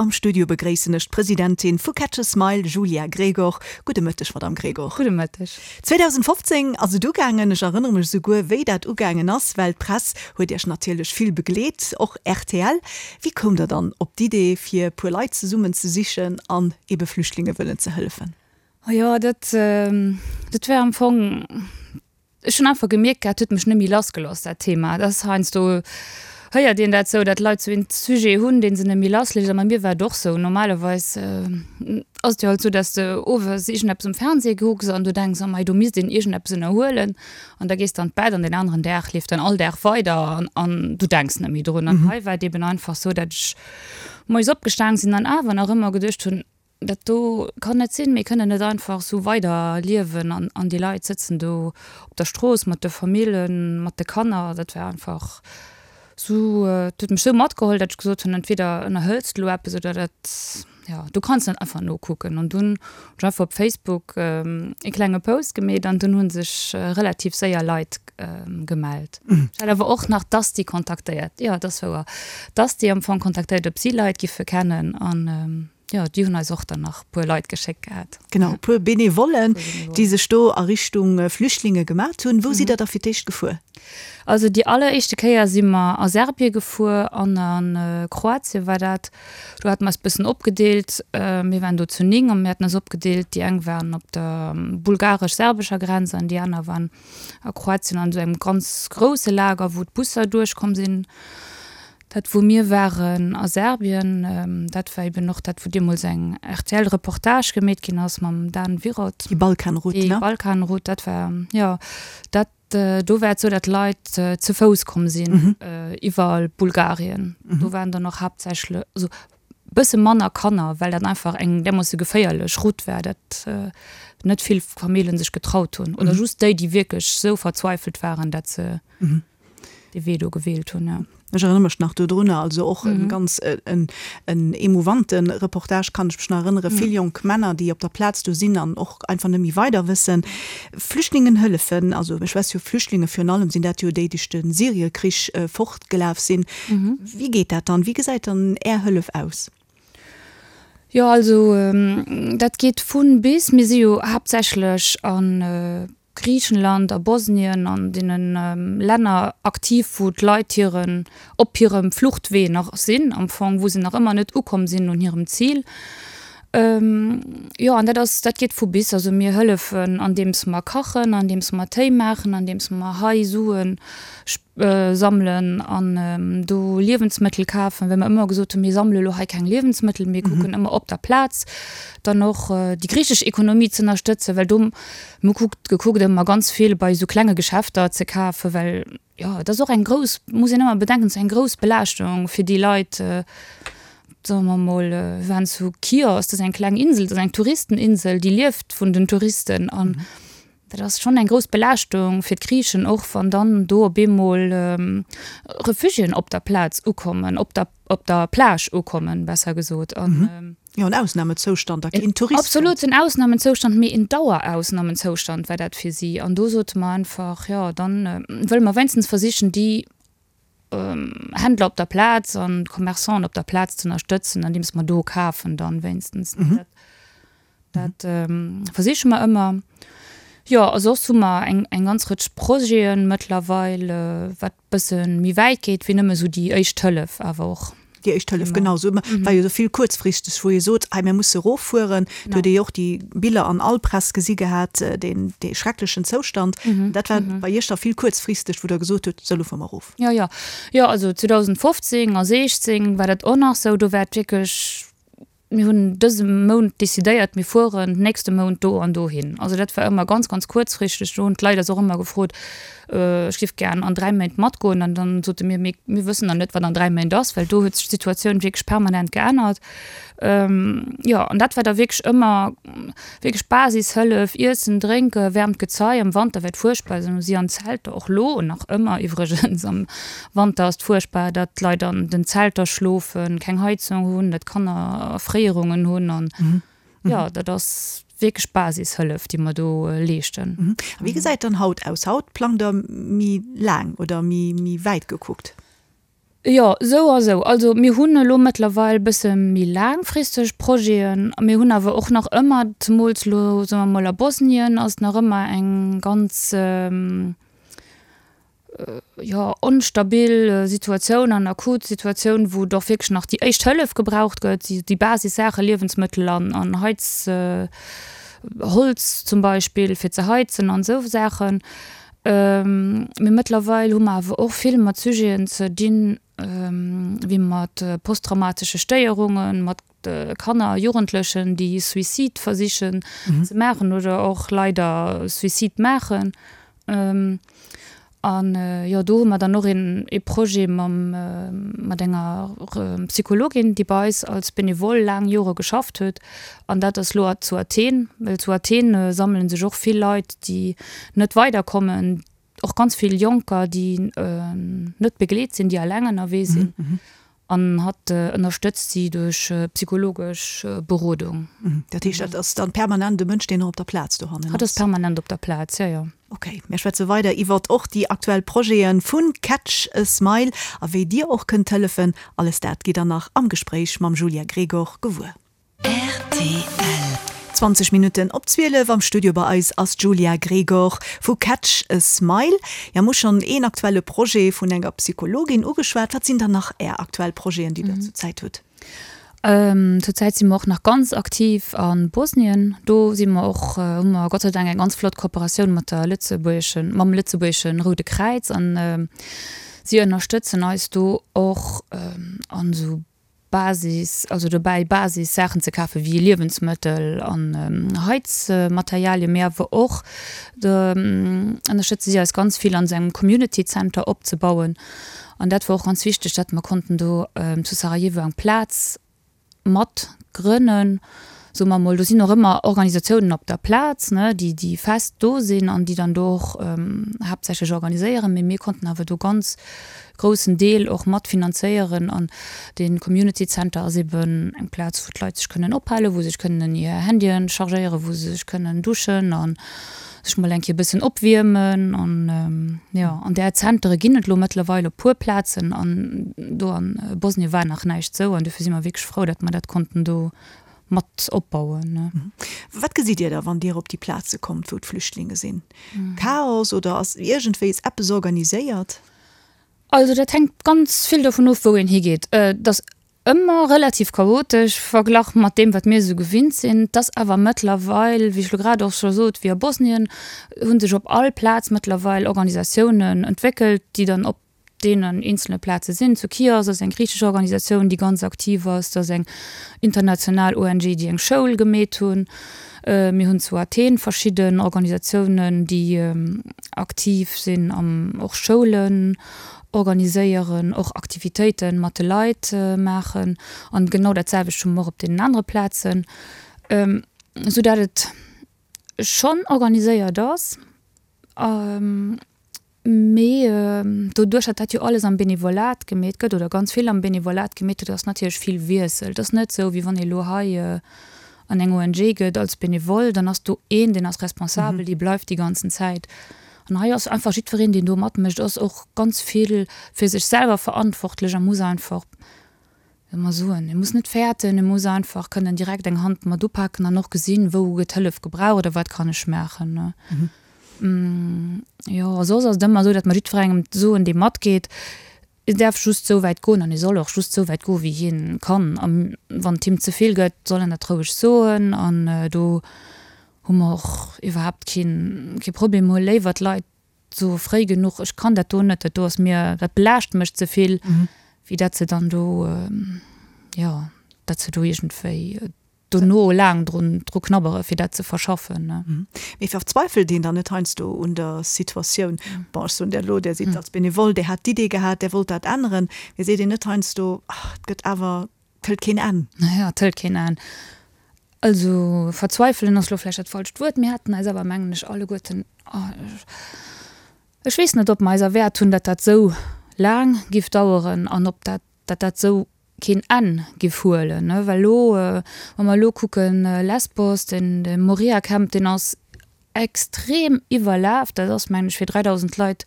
Am Studio begréissen ech d'Presidentin vu Catch a Smile, Julia Gregor. Gudde Mëtteg, Madamm Gregor. Gudde Mëtteg. 2015 ass et ugaangen. Ech erënnere mech esouguer, wéi dat ugaangen ass, well d'Press huet Iech natierlech vill begleet, och rtl. Wéi koumt Der dann op d'Idee, fir e puer Leit zesummen ze sichen an ebe Flüchtlinge wëllen ze hëllefen? Oh jo, dat, dat war am Fong, ech hunn einfach gemierkt gehat, et huet mech net méi lassgelooss, dat Thema. Dat ass heiansdo, héiert een dat sou, dat Leit sou een Sujet hunn, dee se net méi lassléisst. A bei mir war et och sou. Normalerweis ass et jo halt sou, dass de owes iergendeppes um Fernseh kucks an du denks, oh mei, do misst een iergendeppes ënnerhuelen. An da gees de an d'Bett an deen aneren Dag leeft dann all Dag weider an, an du denks net méi drun. An hei war et eben einfach sou, dat ech moies opgestaang sinn an awer nach ëmmer geduecht hunn, Dat do kann net sinn. Mir kënnen net einfach esou weider liewen an, an déi Leit sëtzen do op der Strooss mat de Famillen, mat de Kanner. Dat war einfach esou, dat huet mech esou matgeholl, datt ech gesot hunn, entweder ënnerhëls de elo eppes oder dat, jo, du kanns net einfach nokucken. An dunn hunn ech einfach op Facebook e klenge Post gemeet an dunn hu sech relativ séier Leit gemellt. Ech hat awer och nach d'Asti kontaktéiert, jo, dat ass wouer, d'Asti am Fong kontaktéiert, ob si Leit giffe kennen an. Jo, déi hunn eis och dann nach puer Leit geschéckt gehat. Genau, e puer Benevollen, déi sech do a Richtung Flüchtlinge gemat hunn. Wou sidd Der da fir d'éischt gefuer? Also déi alleréischte Kéier si mer a Serbie gefuer an a Kroatien war dat. Do hate mer eis bëssen opgedeelt. Mir waren do zu 9 a mir haten eis opgedeelt, déi eng waren op der bulgaresch-serbescher Grenz an déi aner waren a Kroatien an esou engem ganz grousse Lager, wou d'Busser duerchkomm sinn. Dat wou mir waren a Serbien, dat war eben och dat wou deemools eng RTL-Reportage gemeet ginn ass mam Dan Wirot. Déi Balkanroute, ne? Déi Balkanroute, dat war, jo, dat, do war et sou, dat Leit ze Fouss komm sinn iwwer Bulgarien. Do waren dann och haaptsächlech, also bësse manner Kanner, well dat einfach eng därmoosse geféierlech Route war, dat net vill Famillen sech getraut hunn oder just déi, déi wierklech sou verzweifelt waren, dat se. dee Wee do gewielt hunn, jo. Ech erënnere mech nach dodrunner, also och e ganz en en emouvante Reportage, kann ech mech nach erënnere, vill jonk Männer, déi op der Plaz do sinn an och einfach net méi weider wëssen. Flüchtlingen hëllefen, also ech wess jo, Flüchtlinge virun allem sinn dat jo déi, déi duerch de Syriekrich fortgelaf sinn. Wéi geet dat dann? Wéi gesäit dann Är Hëllef aus? Jo, also dat geet vun bis. Mir si jo haaptsächlech a Griichenland, a Bosnien, an deene Länner aktiv, wou d'Leit hiren, op hirem Fluchtwee nach sinn am Fong, wou se nach ëmmer net ukomm sinn un hirem Zil. Jo, an dat ass, dat geet vu bis. Also mir hëllefen andeems mer kachen, andeems mer Téi maachen, andeems mer hei Suen sammelen an do Liewensmëttel kafen, well mer ëmmer gesot hunn, mir sammele lo hei keng Liewensmëttel, mir kucken ëmmer op der Plaz dann och déi griichesch Ekonomie ze ënnerstëtzen, well do, mir hu kuckt, gekuckt ëmmer ganz vill bei esou klenge Geschäfter ze kafen, well jo, et ass och eng grouss, muss een ëmmer bedenken, et ass eng grouss Belaaschtung fir déi Leit, soe mer mol, wir waren zu Chios, dat ass eng kleng Insel, dat ass eng Touristeninsel, déi lieft vun den Touristen an Dat ass schonn eng grouss Belaaschtung fir d'Griichen, och wann dann do op eemol Refugiéen op der Plaz ukommen, op der, op der Plage ukommen, besser gesot. An, Jo, en Ausnamezoustand a keen Tourist. Absolut en Ausnamezoustand, mee en Dauerausnamezoustand war dat fir si. An do sote mer einfach, jo, dann wëlle mer wéinstens versichen, déi Händler op der Plaz an d'Commerçanten op der Plaz ze ënnerstëtzen, andeems mer do kafen dann wéinstens. Dat versiche mer ëmmer. Jo, a soss hu mer eng, eng ganz Rëtsch Projete mëttlerweil, wat bësse méi wäit geet wéi nëmme esou déi éischt Hëllef awer och. Déi éischt Hëllef, genau. Esou war jo esou vill kuerzfristeg, wou ee sot, hei mir musse eroffueren. Do huet ee jo och déi Biller an all Press gesi gehat, deen, dee schrecklechen Zoustand. Dat war bei Iech da vill kuerzfristeg, wou Der gesot hutt, sou elo fuere mer erof. Jo, jo. Jo, also 2015 a 16 war dat och nach esou. Do war et wierklech Mir hunn dëse Mount decidéiert, mir fueren nächste Mount do an dohin. Also dat war ëmmer ganz, ganz kuerzfristeg. Do hunn d'Leit eis och ëmmer gefrot, ech géif gären an 3 Méint matgoen. An dann sote mir, mee mir wëssen nach net, wat an 3 Méint ass, well do huet sech d'Situatioun wierklech permanent geännert. Jo, an dat war da wierklech ëmmer wierklech Basishëllef, Iessen, Drénken, waarmt Gezei. Am Wanter war et fuerchtbar, also si an Zelter, och lo nach ëmmer iwwregens am Wanter ass et fuerchtbar, datt d'Leit an den Zelter schlofen, keng Heizung hunn, datt d'Kanner Erfréierungen hunn an jo, dat ass wierklech Basishëllef, déi mer do leeschten. A wéi gesäit dann haut aus? Haut plangt Der méi laang oder méi wäit gekuckt? Jo, esou a sou. Also mir hunn elo mëttlerweil e bësse méi laangfristeg Projeten. Mir hunn awer och nach ëmmer, zemools elo, soe mer mol a Bosnien ass nach ëmmer eng ganz, jo, onstabil Situatioun an akut Situatioun, wou et och wierklech nach déi éischt Hëllef gebraucht gëtt, déi Basissaache, Liewensmëttel an an Heiz, Holz zum Beispill fir ze heizen an esou Saachen. Mee mëttlerweil hu mer awer och vill mat Sujeten ze dinn, wéi mat posttraumatesche Stéierungen, mat Kanner a Jugendlechen, déi Suicide versichen ze maachen oder och leider Suicide maachen. An jo, do hu mer dann och een ee Projet mam, mat enger Psychologin, déi bei eis als Benevole laang Jore geschafft huet. An dat ass lo zu Athen, well zu Athen sammele sech och vill Leit, déi net weiderkommen, och ganz vill Jonker, déi net begleet sinn, déi eleng ënnerwee sinn. An hatt ënnerstëtzt si duerch psychologesch Berodung. Dat heescht, dat ass dann permanent e Mënsch, deen och op der Plaz dohannen ass? Hatt ass permanent op der Plaz, jo, jo. Ok, mir schwätze weider iwwert och déi aktuell Projete vu Catch a Smile a wéi Dir och kënnt hëllefen. Alles dat gitt der nach am Gespréich mam Julia Gregor gewuer. Rtl. 20 Minutten op 12, am Studio bei eis ass d'Julia Gregor vu Catch a Smile. Jo, mir hu schonn een aktuelle Projet vun enger Psychologin ugeschwat. Wat sinn dann nach Är aktuell Projeten, déi Der zur Zäit hutt? Zur Zäit si mer och nach ganz aktiv a Bosnien. Do si mer och, hu mer Gott sei Dank eng ganz flott Kooperatioun mat der lëtzebuergeschen, mam lëtzebuergesche Roude Kräiz an si ënnerstëtzen eis do och an esou Basis, also dobäi Basis Saachen ze kafen, wéi Liewensmëttel an Heizmaterialien, mee awer och ënnerstëtze si eis ganz vill an esou engem Community Center opzebauen. An dat war och ganz wichteg, datt mer konnten do zu Sarajevo eng Plaz mat grënnen, soe mer emol. Do sinn och ëmmer Organisatiounen op der Plaz, ne, déi déi fest do sinn an déi dann do och haaptsächlech organiséieren, mee mir konnten awer do ganz groussen Deel och mat finanzéieren an dee Community Center ass eben eng Plaz wou d'Leit sech kënnen ophalen, wou se sech kënnen hir Handyen chargéieren, wou se sech kënnen duschen a sech mol eng Kéier e bëssen opwiermen an jo an där Zentere ginn et elo mëttlerweil op puer Plazen an do an Bosnien war nach näischt sou an dofir si mer wierklech frou, datt mer dat konnten do mat opbauen. Wat gesitt Dir da wann Dir op déi Plaze kommt wou d'Flüchtlinge sinn? Chaos oder ass iergendwéis eppes organiséiert? Also dat hänkt ganz vill dovun of, wou een higeet. Et ass ëmmer relativ chaotesch verglach mat deem, wat mir esou gewinnt sinn. Et ass awer mëttlerweil, wéi ech elo grad och scho sot, wéi a Bosnien, hu sech op all Plaz mëttlerweil Organisatiounen entwéckelt, déi dann op deenen eenzele Plaze sinn. Zu Chios ass eng griichesch Organisatioun, déi ganz aktiv ass. Et ass eng international ONG, déi eng Schoul gemeet hunn. Mir hunn zu Athen verschidden Organisatiounen, déi aktiv sinn an och Schoulen organiséieren, och Aktivitéite mat de Leit maachen. An genau dat selwecht hu mer och op deenen anere Plazen, esou dat et schonn organiséiert ass. Mee doduerch, datt dat jo alles am Benevolat gemeet gëtt, oder ganz vill am Benevolat gemeet gëtt, ass natierlech vill Wiessel. Et ass net esou, wéi wann ee elo hei an eng ONG geet als Benevole, dann ass do een, deen ass responsabel, dee bleift déi ganzen Zäit. An hei ass einfach jiddwereen, deen do matmécht, ass och ganz vill fir sech selwer verantwortlech a muss einfach, wéi mer soen, e muss net fäerten, e muss einfach kënnen direkt eng Hand mat upaken an och gesinn, wou gëtt Hëllef gebraucht oder wat kann ech maachen. Jo, a soss ass et ëmmer esou, datt mer jiddwerengem soen, dee matgeet, e däerf just esou wäit goen an e soll och just esou wäit goen, wéi hien kann. A wann et him ze vill gëtt, soll en dat roueg soen an do hu mer och iwwerhaapt keen, kee Problem. Mer hu léiwer d'Leit soe fréi genuch, ech kann dat do net, dat do ass mir, dat belaascht mech ze vill, wéi dat se dann do, jo, dat se do iergendwéi dono laang drun dru knabbere fir dat ze verschaffen. Mee verzweifelt een dann net heiansdo un der Situatioun? Bon, ech soen der elo, där sidd als Benevole, där hat d'Idee gehat, där wollt dat änneren, mee seet een net heiansdo, ach, et gëtt awer, et hëlt keen Enn? Jo, et hëlt keen Enn. Also verzweifelen ass elo vläicht dat falscht Wuert. Mir haten eis awer, mengen ech, alleguerten, ech weess net, ob mer eis erwäert hunn, datt dat esou laang giff daueren an ob dat, datt dat esou keen Enn giff huelen, ne, well elo, wa mer elo kucken, Lesbos, den de Moria Camp, deen ass extrem iwwerlaf, dat ass mengen ech fir 3.000 Leit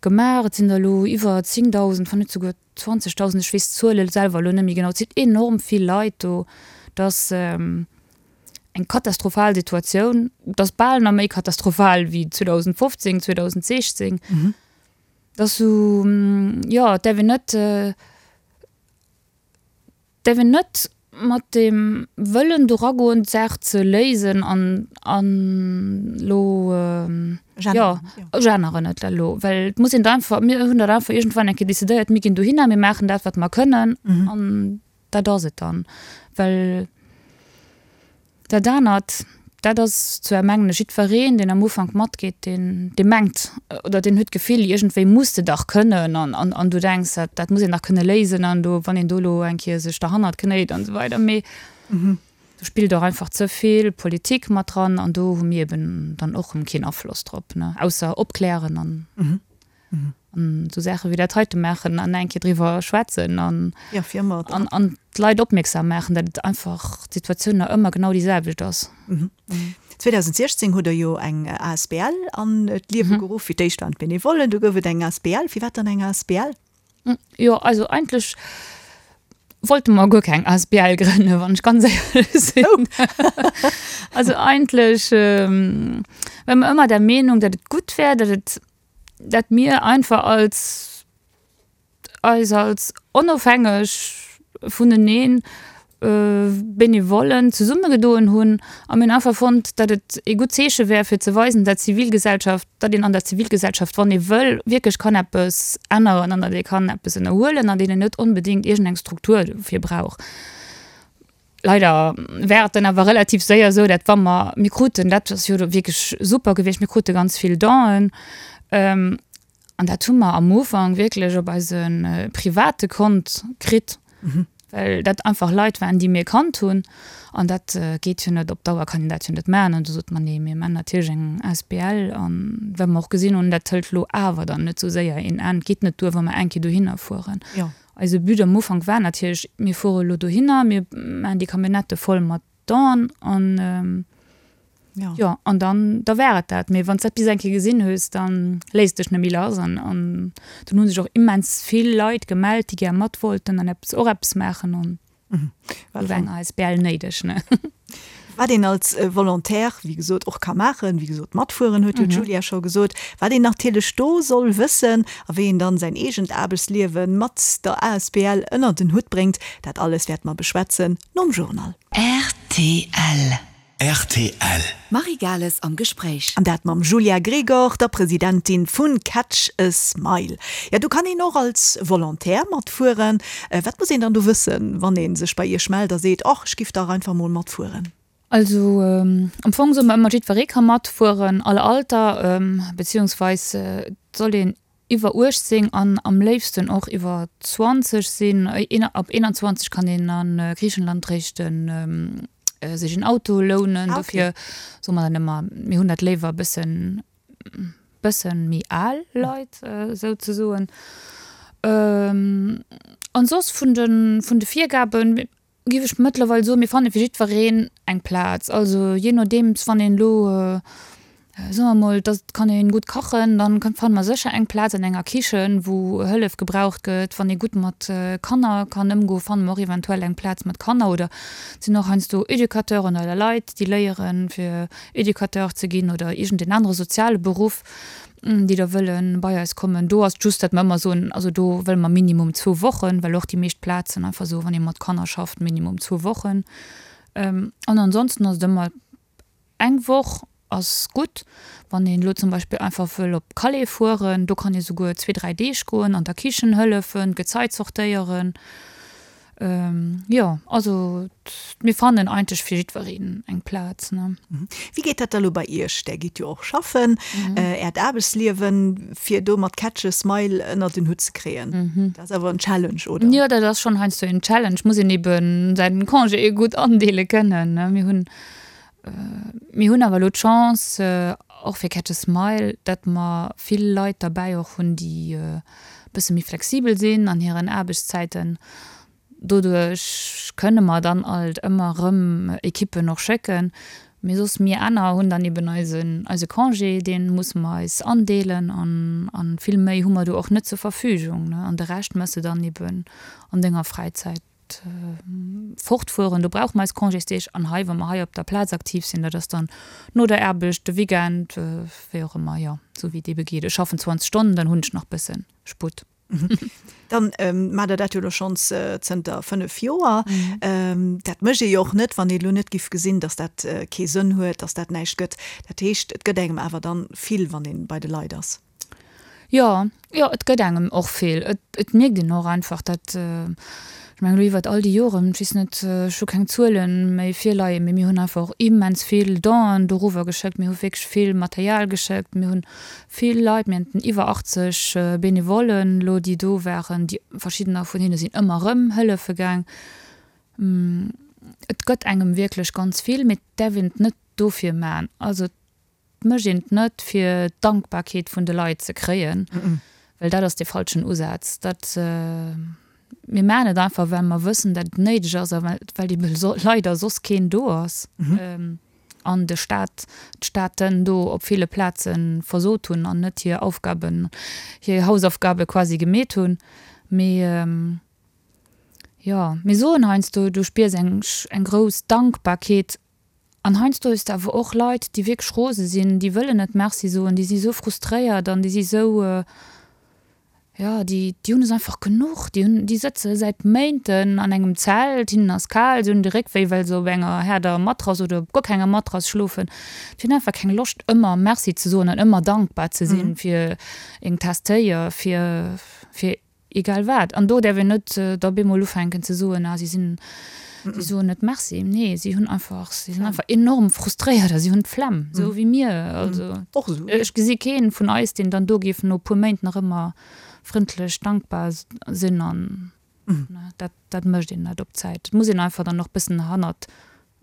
gemaach, et sinn der elo iwwer 10.000, wann net souguer. 20.000, ech weess d'Zuele selwer elo net méi genau, et sinn enorm vill Leit do, et ass eng katastrophal Situatioun, et ass bal nach méi katastrophal wéi 2015, 2016. Et ass esou, jo, et däerf een net, däerf een net mat deem Wëllen do ragoen, d'Saach ze léisen an, an elo, jo, ech änneren et elo, well et muss een da einfach, mir hunn dat einfach iergendwann eng Kéier decidéiert, mir ginn dohinner, mir maachen dat, wat mer kënnen an dat ass et dann. Well Dat anert, dat ass zwar, mengen ech, jiddwereen, deen am Ufank matgeet, deen, dee mengt oder deen huet d'Gefill, iergendwéi muss de dach kënnen an, an, an du denks, dat, dat muss een dach kënne léisen an do, wann een do elo eng Kéier sech derhannert knéit an esou weider. Mee do spillt och einfach ze vill Politik mat dran an do hu mir eben dann och erëm keen Afloss drop, ne, ausser opklären an. An esou Saache wéi dat heite maachen an eng Kéier driwwer schwätzen an, ja, fir ëmmer an, an d'Leit opmierksam maachen, datt et einfach d'Situatioun nach ëmmer genau déi selwecht ass. 2016 hutt Der jo eng asbl an d'Liewe geruff. Fir d'éischt waren d'Benevollen, du gouf et eng asbl. Firwat dann eng asbl? Jo, also eigentlech wollte mer guer keng asbl grënnen, wann ech ganz éierlech sinn. Also eigentlech ware mer ëmmer der Meenung, datt et gutt wär, datt et dat mir einfach als eis als onofhängeg vuneneen Benevollen zesummegedoen hunn a mir hunn einfach fonnt, datt et ee gutt Zeeche wär fir ze weisen, dat Zivilgesellschaft, datt een an der Zivilgesellschaft, wann ee wëll, wierklech kann eppes änneren an datt ee kann eppes ënnerhuelen an deen een net onbedéngt iergendeng Struktur dofir brauch. Leider war et dann awer relativ séier esou, dat wa mer, mir kruten, dat ass jo wierklech super gewiescht, mir krute ganz vill Donen an dat hu mer am Ufank wierklech op eise private Kont kritt, well dat einfach Leit waren, déi mir kannt hunn an dat geet jo net, op Dauer kann een dat jo net maachen. An du sot mer, nee, mir maachen natierlech eng asbl an well mer och gesinn hunn, dat hëlt elo awer dann net esou séier een Enn, et geet net duer, wa mer eng Kéier dohinner fueren. Eise But am Ufank war natierlech, mir fuere elo dohinner, mir maachen déi Camionnette voll mat Don an jo, an dann, da war et dat. Mee wann s dat bis eng Kéier gesinn hues, da léisst dech net méi lass an an dunn hu sech och immens vill Leit gemellt, déi gär mat wollten an eppes, och eppes maachen an. Do war eng asbl néideg, ne? Wat een als Volontaire, wéi gesot, och ka maachen, wéi gesot, matfueren, huet jo d'Julia scho gesot. Wat een natierlech do soll wëssen a wéi een dann säin eegent Aarbechtsliewe mat der asbl ënnert en Hutt bréngt, dat alles wäerte mer beschwätzen nom Journal. Rtl. Rtl. D'Marie Gales am Gespréich. An dat mam Julia Gregor, der Presidentin vun Catch a Smile. Ja, do kann een och als Volontaire matfueren. Wat muss een dann do wëssen, wann ee sech bei Iech mellt a seet, Och, ech giff dach einfach mol matfueren? Also am Fong soe mer ëmmer, jiddweree ka matfueren, all Alter, beziehungsweis et soll een iwwer 18 an am léifsten och iwwer 20 sinn. Ab 21 kann een a Griichenland réischt sech en Auto lounen. Dofir soe mer dann ëmmer, mir hunn dat léiwer e bëssen, bëssen méi al Leit souzesoen. An soss vun de, vun de Virgaben, Giff ech mëttlerweil soen, mir fanne fir jiddwereen eng Plaz. Also jee nodeems, wann een elo, soe mer mol, dass et kann een gutt kachen, dann fanne mer sécher eng Plaz an enger Kichen, wou Hëllef gebraucht gëtt. Wann ee gutt mat Kanner kann ëmgoen, fanne mer och eventuell eng Plaz mat Kanner. Oder et sinn och heiansdo Educateuren oder Leit, déi léieren, fir Educateur ze ginn oder iergendeen anere soziale Beruff. déi da wëlle bei eis kommen. Do ass et just, datt mer ëmmer soen, also do wëlle mer minimum zwou Wochen, well och déi meescht Plazen einfach soen, wann ee mat Kanner schafft, minimum zwou Wochen. An ansonsten ass et ëmmer eng Woch ass gutt. Wann een elo zum Beispill einfach wëll op Calais fueren, do kann ee souguer zwee, dräi Deeg goen, an der Kichen hëllefen, d'Gezei zortéieren. Jo, also mir fannen eigentlech fir jiddwereen eng Plaz, ne. Wéi geet dat da lo bei Iech? Där gitt jo och schaffen, Äert Aarbechtsliewen, fir do mat Catch a Smile ënnert en Hutt ze kréien, dat ass awer en Challenge, oder? Jo, dat ass schonn heiansdo en Challenge, muss een eben säin Congé gutt andeele kënnen, ne. Mir hunn, mir hunn awer elo d'Chance, och fir Catch a Smile, datt mer vill Leit derbäi och hunn, déi bësse méi flexibel sinn an hiren Aarbechtszäiten. Doduerch kënne mer dann alt ëmmer erëm Ekippen och schécken. Mee soss mir aner hunn dann eben eisen, eise Congé, dee musse mer eis andeelen an, an vill méi hu mer do och net zur Verfügung, ne. An de Rescht méchs de dann eben an denger Fräizäit fortfueren. Do brauche mer eis Congésdeeg. An hei, wa mer hei op der Plaz aktiv sinn, dat ass dann no der Aarbecht, de Weekend, wéi och ëmmer, jo, esou wéi et ebe geet. Ech schaffen 20 Stonnen, dann hunn ech nach bësse Sputt. Dann maacht Der dat jo elo schonns zënter 5 Joer. Dat mécht ee jo och net, wann ee elo net giff gesinn, datt dat kee Sënn huet, datt dat näischt gëtt. Dat heescht, et gëtt engem awer dann vill, wann ee bei de Leit ass. Jo, jo, et gëtt engem och vill. Et, et mierkt een och einfach, datt, ech mengen elo iwwert all déi Joren, ech weess net, ech hu keng Zuele méi virleien, mee mir hunn einfach och immens vill Donen doruwwer geschéckt, mir hu wierklech vill Material geschéckt, mir hunn vill Leit, mir haten iwwer 80 Benevollen elo, déi do waren, déi verschiddener vun hinne sinn ëmmer erëm hëllefe gaang. Et gëtt engem wierklech ganz vill, mee et däerf een et net dofir man. Also et mécht een et net fir d'Dankbarkeet vun de Leit ze kréien, well dat ass dee falschen Usaz. Dat, mir maachen et einfach, well mer wëssen, dat et néideg ass a well ebe leider soss keen do ass. An de Staat, d'Staaten do op ville Plaze versot hunn an net hir Aufgaben, hir Hausaufgabe quasi gemeet hunn. Mee jo, mir soen heiansdo, du spiers eng, eng grouss Dankbarkeet. An heiansdo hues de awer och Leit, déi wierklech rose sinn, déi wëllen net Merci soen, déi si sou frustréiert an déi si sou, jo, déi, déi hunn es einfach genuch. Déi hunn, déi sëtze säit Méinten an engem Zelt, hinnen ass kal, si hunn de Réck wéi, well se op enger haarder Matrass oder op guer kenger Matrass schlofen. Déi hunn einfach keng Loscht, ëmmer Merci ze soen an ëmmer dankbar ze sinn fir eng Taass Téi a fir, fir Egal wat. An do däerf een net da bemol ufänken ze soen, ah si sinn, si soen net Merci. Nee, si hunn einfach, si sinn einfach enorm frustréiert a si hunn d'Flemm, esou wéi mir. Also ech gesi kee vun eis, deen dann do géif no e puer Méint nach ëmmer frëndlech, dankbar sinn. An dat, dat mécht een net op Zäit. Et muss een einfach dann och bëssen hannert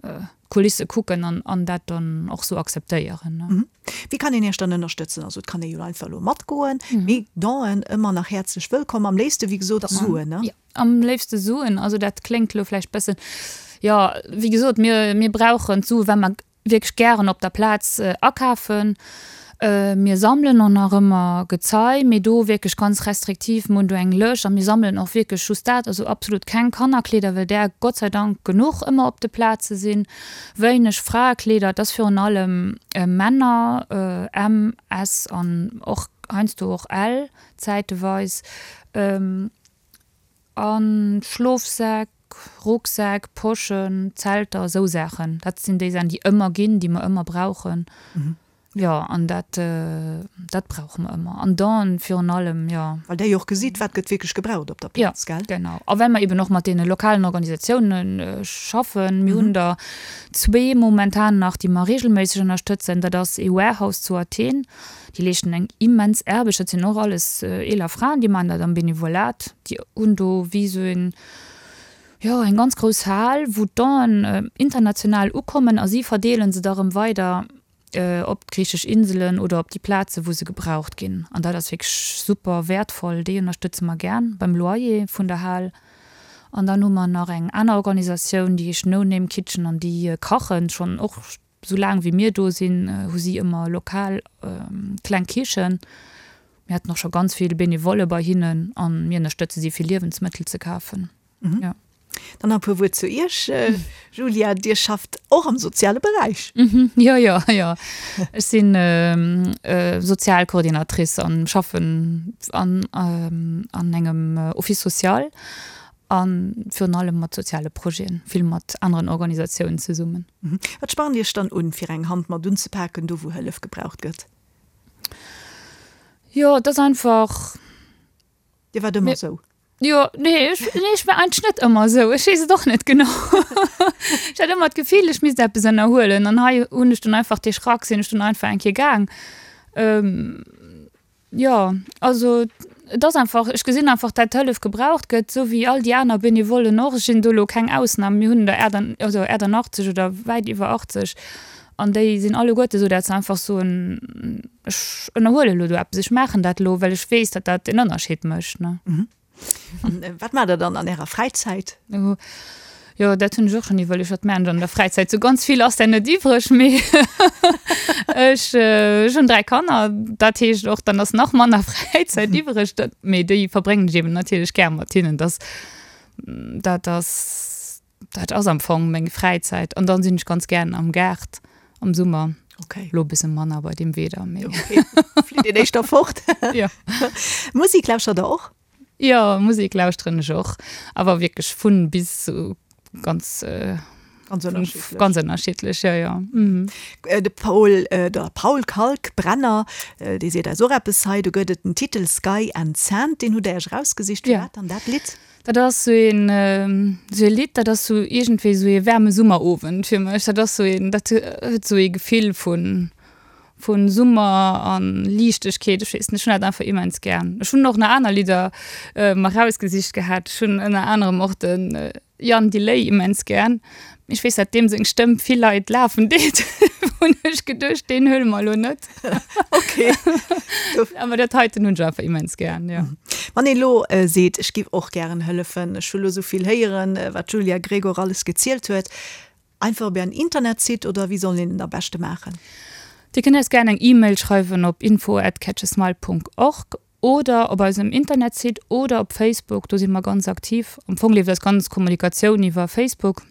d'Kulisse kucken an, an dat dann och sou akzeptéieren. Wéi kann een Iech dann ënnerstëtzen? Also et kann ee jo einfach elo matgoen, mee Donen ëmmer nach häerzlech wëllkomm. Am léifste wéi gesot Suen, ne? Jo, am léifste Suen. Also dat kléngt elo vläicht bëssen, jo, wéi gesot, mir, mir brauchen d'Sue well mer wierklech gären op der Plaz akafen. Mir sammelen och nach ëmmer Gezei, mee do wierklech ganz restriktiv. Mir hunn do eng Lëscht a mir sammelen och wierklech just dat, also absolut keng Kannerkleeder, well där Gott sei Dank genuch ëmmer op de Plaze sinn. Wéineg Fraekleeder, et ass virun allem Männer, M, S an och heiansdo och L zäiteweis. A Schlofsäck, Rucksäck, Poschen, Zelter, esou Saachen. Dat sinn déi Saachen, déi ëmmer ginn, déi mer ëmmer brauchen. Jo, an dat, dat brauche mer ëmmer. An dann virun allem, jo. Well Der jo och gesitt, wat gëtt wierklech gebraucht op der Plaz, gell? Jo, genau. A well mer eben och mat deene lokalen Organisatiounen schaffen. Mir hunn der zwee momentan nach, déi mer reegelméisseg ënnerstëtzen. Dat ass ee Warehouse zu Athen. Déi leeschten eng immens Aarbecht. Dat sinn och alles eeler Fraen, déi maachen dat am Benevolat. Déi hunn do wéi esou een, jo, eng ganz grouss Hal, wou d'Donen international ukommen a si verdeele se da rëm weider op d'griichesch Inselen oder op déi Plaze wou se gebraucht ginn. An dat ass wierklech super wäertvoll. Déi ënnerstëtze mer gär beim Loyer vun der Hal. An dann hu mer nach eng aner Organisatioun, déi heescht No Name Kitchen an déi kachen schonn och Sou laang wéi mir do sinn, hu si ëmmer lokal kleng Kichen. Mir haten och scho ganz vill Benevolle bei hinnen a mir ënnerstëtze si fir Liewensmëttel ze kafen. Jo. Dann nach e puer Wuert zu Iech, Julia. Dir schafft och am soziale Beräich. Jo, jo, jo. Ech si Sozialcoordinatrice an schaffen an engem Office social A virun allem mat soziale Projeten, vill mat aneren Organisatiounen zesummen. Wat spannt Iech dann un, fir eng Hand mat unzepaken, do wou Hëllef gebraucht gëtt? Jo, et ass einfach. Dir waart ëmmer esou? Jo, nee, ech, nee, ech war eigentlech net ëmmer esou. Ech weess et och net genau. Ech hat ëmmer d'Gefill, ech misst eppes ënnerhuelen. An hei hunn ech dunn einfach dee Schrack, sinn ech dunn einfach eng Kéier gaang. Jo, also et ass einfach, ech gesinn einfach, dat Hëllef gebraucht gëtt, esou wéi all déi aner Benevollen och. Ech sinn do elo keng Ausnam. Mir hunn der also 88 oder wäit iwwer 80 an déi sinn alleguerte esou, dat se einfach soen, ech ënnerhuele elo do eppes, ech maachen dat elo, well ech weess, datt dat en Ënnerscheed mécht, ne. An wat maacht Der dann an Ärer Fräizäit? Jo, dat hunn ech och schonn iwwerluecht, wat maachen ech an der Fräizäit? Sou ganz vill ass där net iwwreg, mee ech, ech hunn 3 Kanner, dat heescht och, dann ass nach manner Fräizäit iwwreg. Dat, mee déi verbréngen ech eben natierlech gär mat hinnen. Dass, dat ass, dat ass am Fong meng Fräizäit. An dann sinn ech ganz gären am Gaart am Summer. Okay. Lo e bësse manner bei deem Wieder, mee. Okay, flitt een éischter fort. Jo. Musek lauschtert Der och? Jo, Musek lauschteren ech och, awer wierklech vun bis, sou ganz ganz ënnerschiddlech. Ganz ënnerschiddlech, jo, jo. Mhm. De Paul, der Paul Kalkbrenner, dee seet eis och eppes hei, do gëtt et den Titel Sky and Sand, deen hutt Der Iech erausgesicht. Firwat dann dat Lidd? Dat ass sou een, sou ee Lidd, dat ass sou iergendwéi sou ee waarme Summerowend fir mech. Dat ass sou een, dat huet sou ee Gefill vun Vun Summer an Liichtegkeet, ech weess net, ech hunn dat einfach immens gär. Ech hunn och nach aner Lidder mer rausgesicht gehat. Ech hunn ënner anerem och de Jan Delay immens gär. Mee ech weess dat deem seng Stëmm vill Leit lafen deet, hunn ech geduecht, deen huele mer elo net. Ok. Awer dat heiten hunn ech einfach immens gär, jo. Wann een elo seet, ech giff och gären hëllefen, ech hu lo sou vill héieren, wat d'Julia Gregor alles gezielt huet, Einfach op ären Internetsite oder wéi soll een et am beschte maachen? Dir kënnt eis gären eng E-Mail schreiwen op info at catchasmile Punkt org oder op eisem Internetsite oder op Facebook, do si mer ganz aktiv. Am Fong leeft eis ganz Kommunikatioun iwwer Facebook.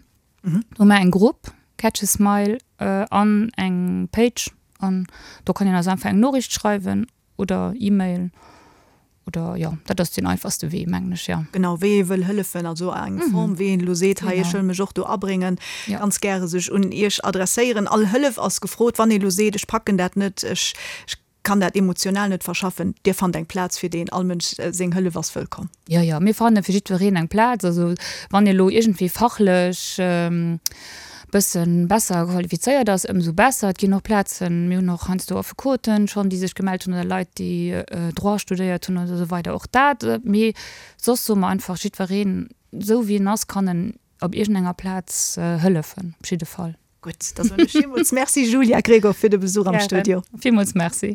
Do hu mer eng Grupp Catch a Smile an eng Page an do kann een eis einfach eng Noriicht schreiwen oder E-Mail oder jo, dat ass deen einfachste Wee, mengen ech, jo. Genau, wéi ee wëll hëllefen, also eng Form, wéi een elo seet, hei, ech wëll mech och do abréngen, ganz gäre sech un Iech adresséieren. All Hëllef ass gefrot. Wann ee elo seet, ech packen dat net, ech kann dat emotional net verschaffen, Dir fannt eng Plaz fir deen. All Mënsch seng Hëllef ass wëllkomm. Jo, jo, mir fanne fir jiddwereen eng Plaz. Also wann ee lo iergendwéi fachlech bësse besser qualifizéiert ass, ëmsou besser. Et ginn och Plazen, mir hunn och heiansdo Affekoten schonn, déi sech gemellt hunn oder Leit, déi Droit studéiert hunn oder esou weider. Och dat. Mee soss soe mer einfach, jiddwereen, esou wéi en ass, kann en op iergendenger Plaz hëllefen, op jidde Fall. Gutt, da soen ech villmools Merci, Julia Gregor, fir de Besuch am Studio. Gären. Villmools Merci.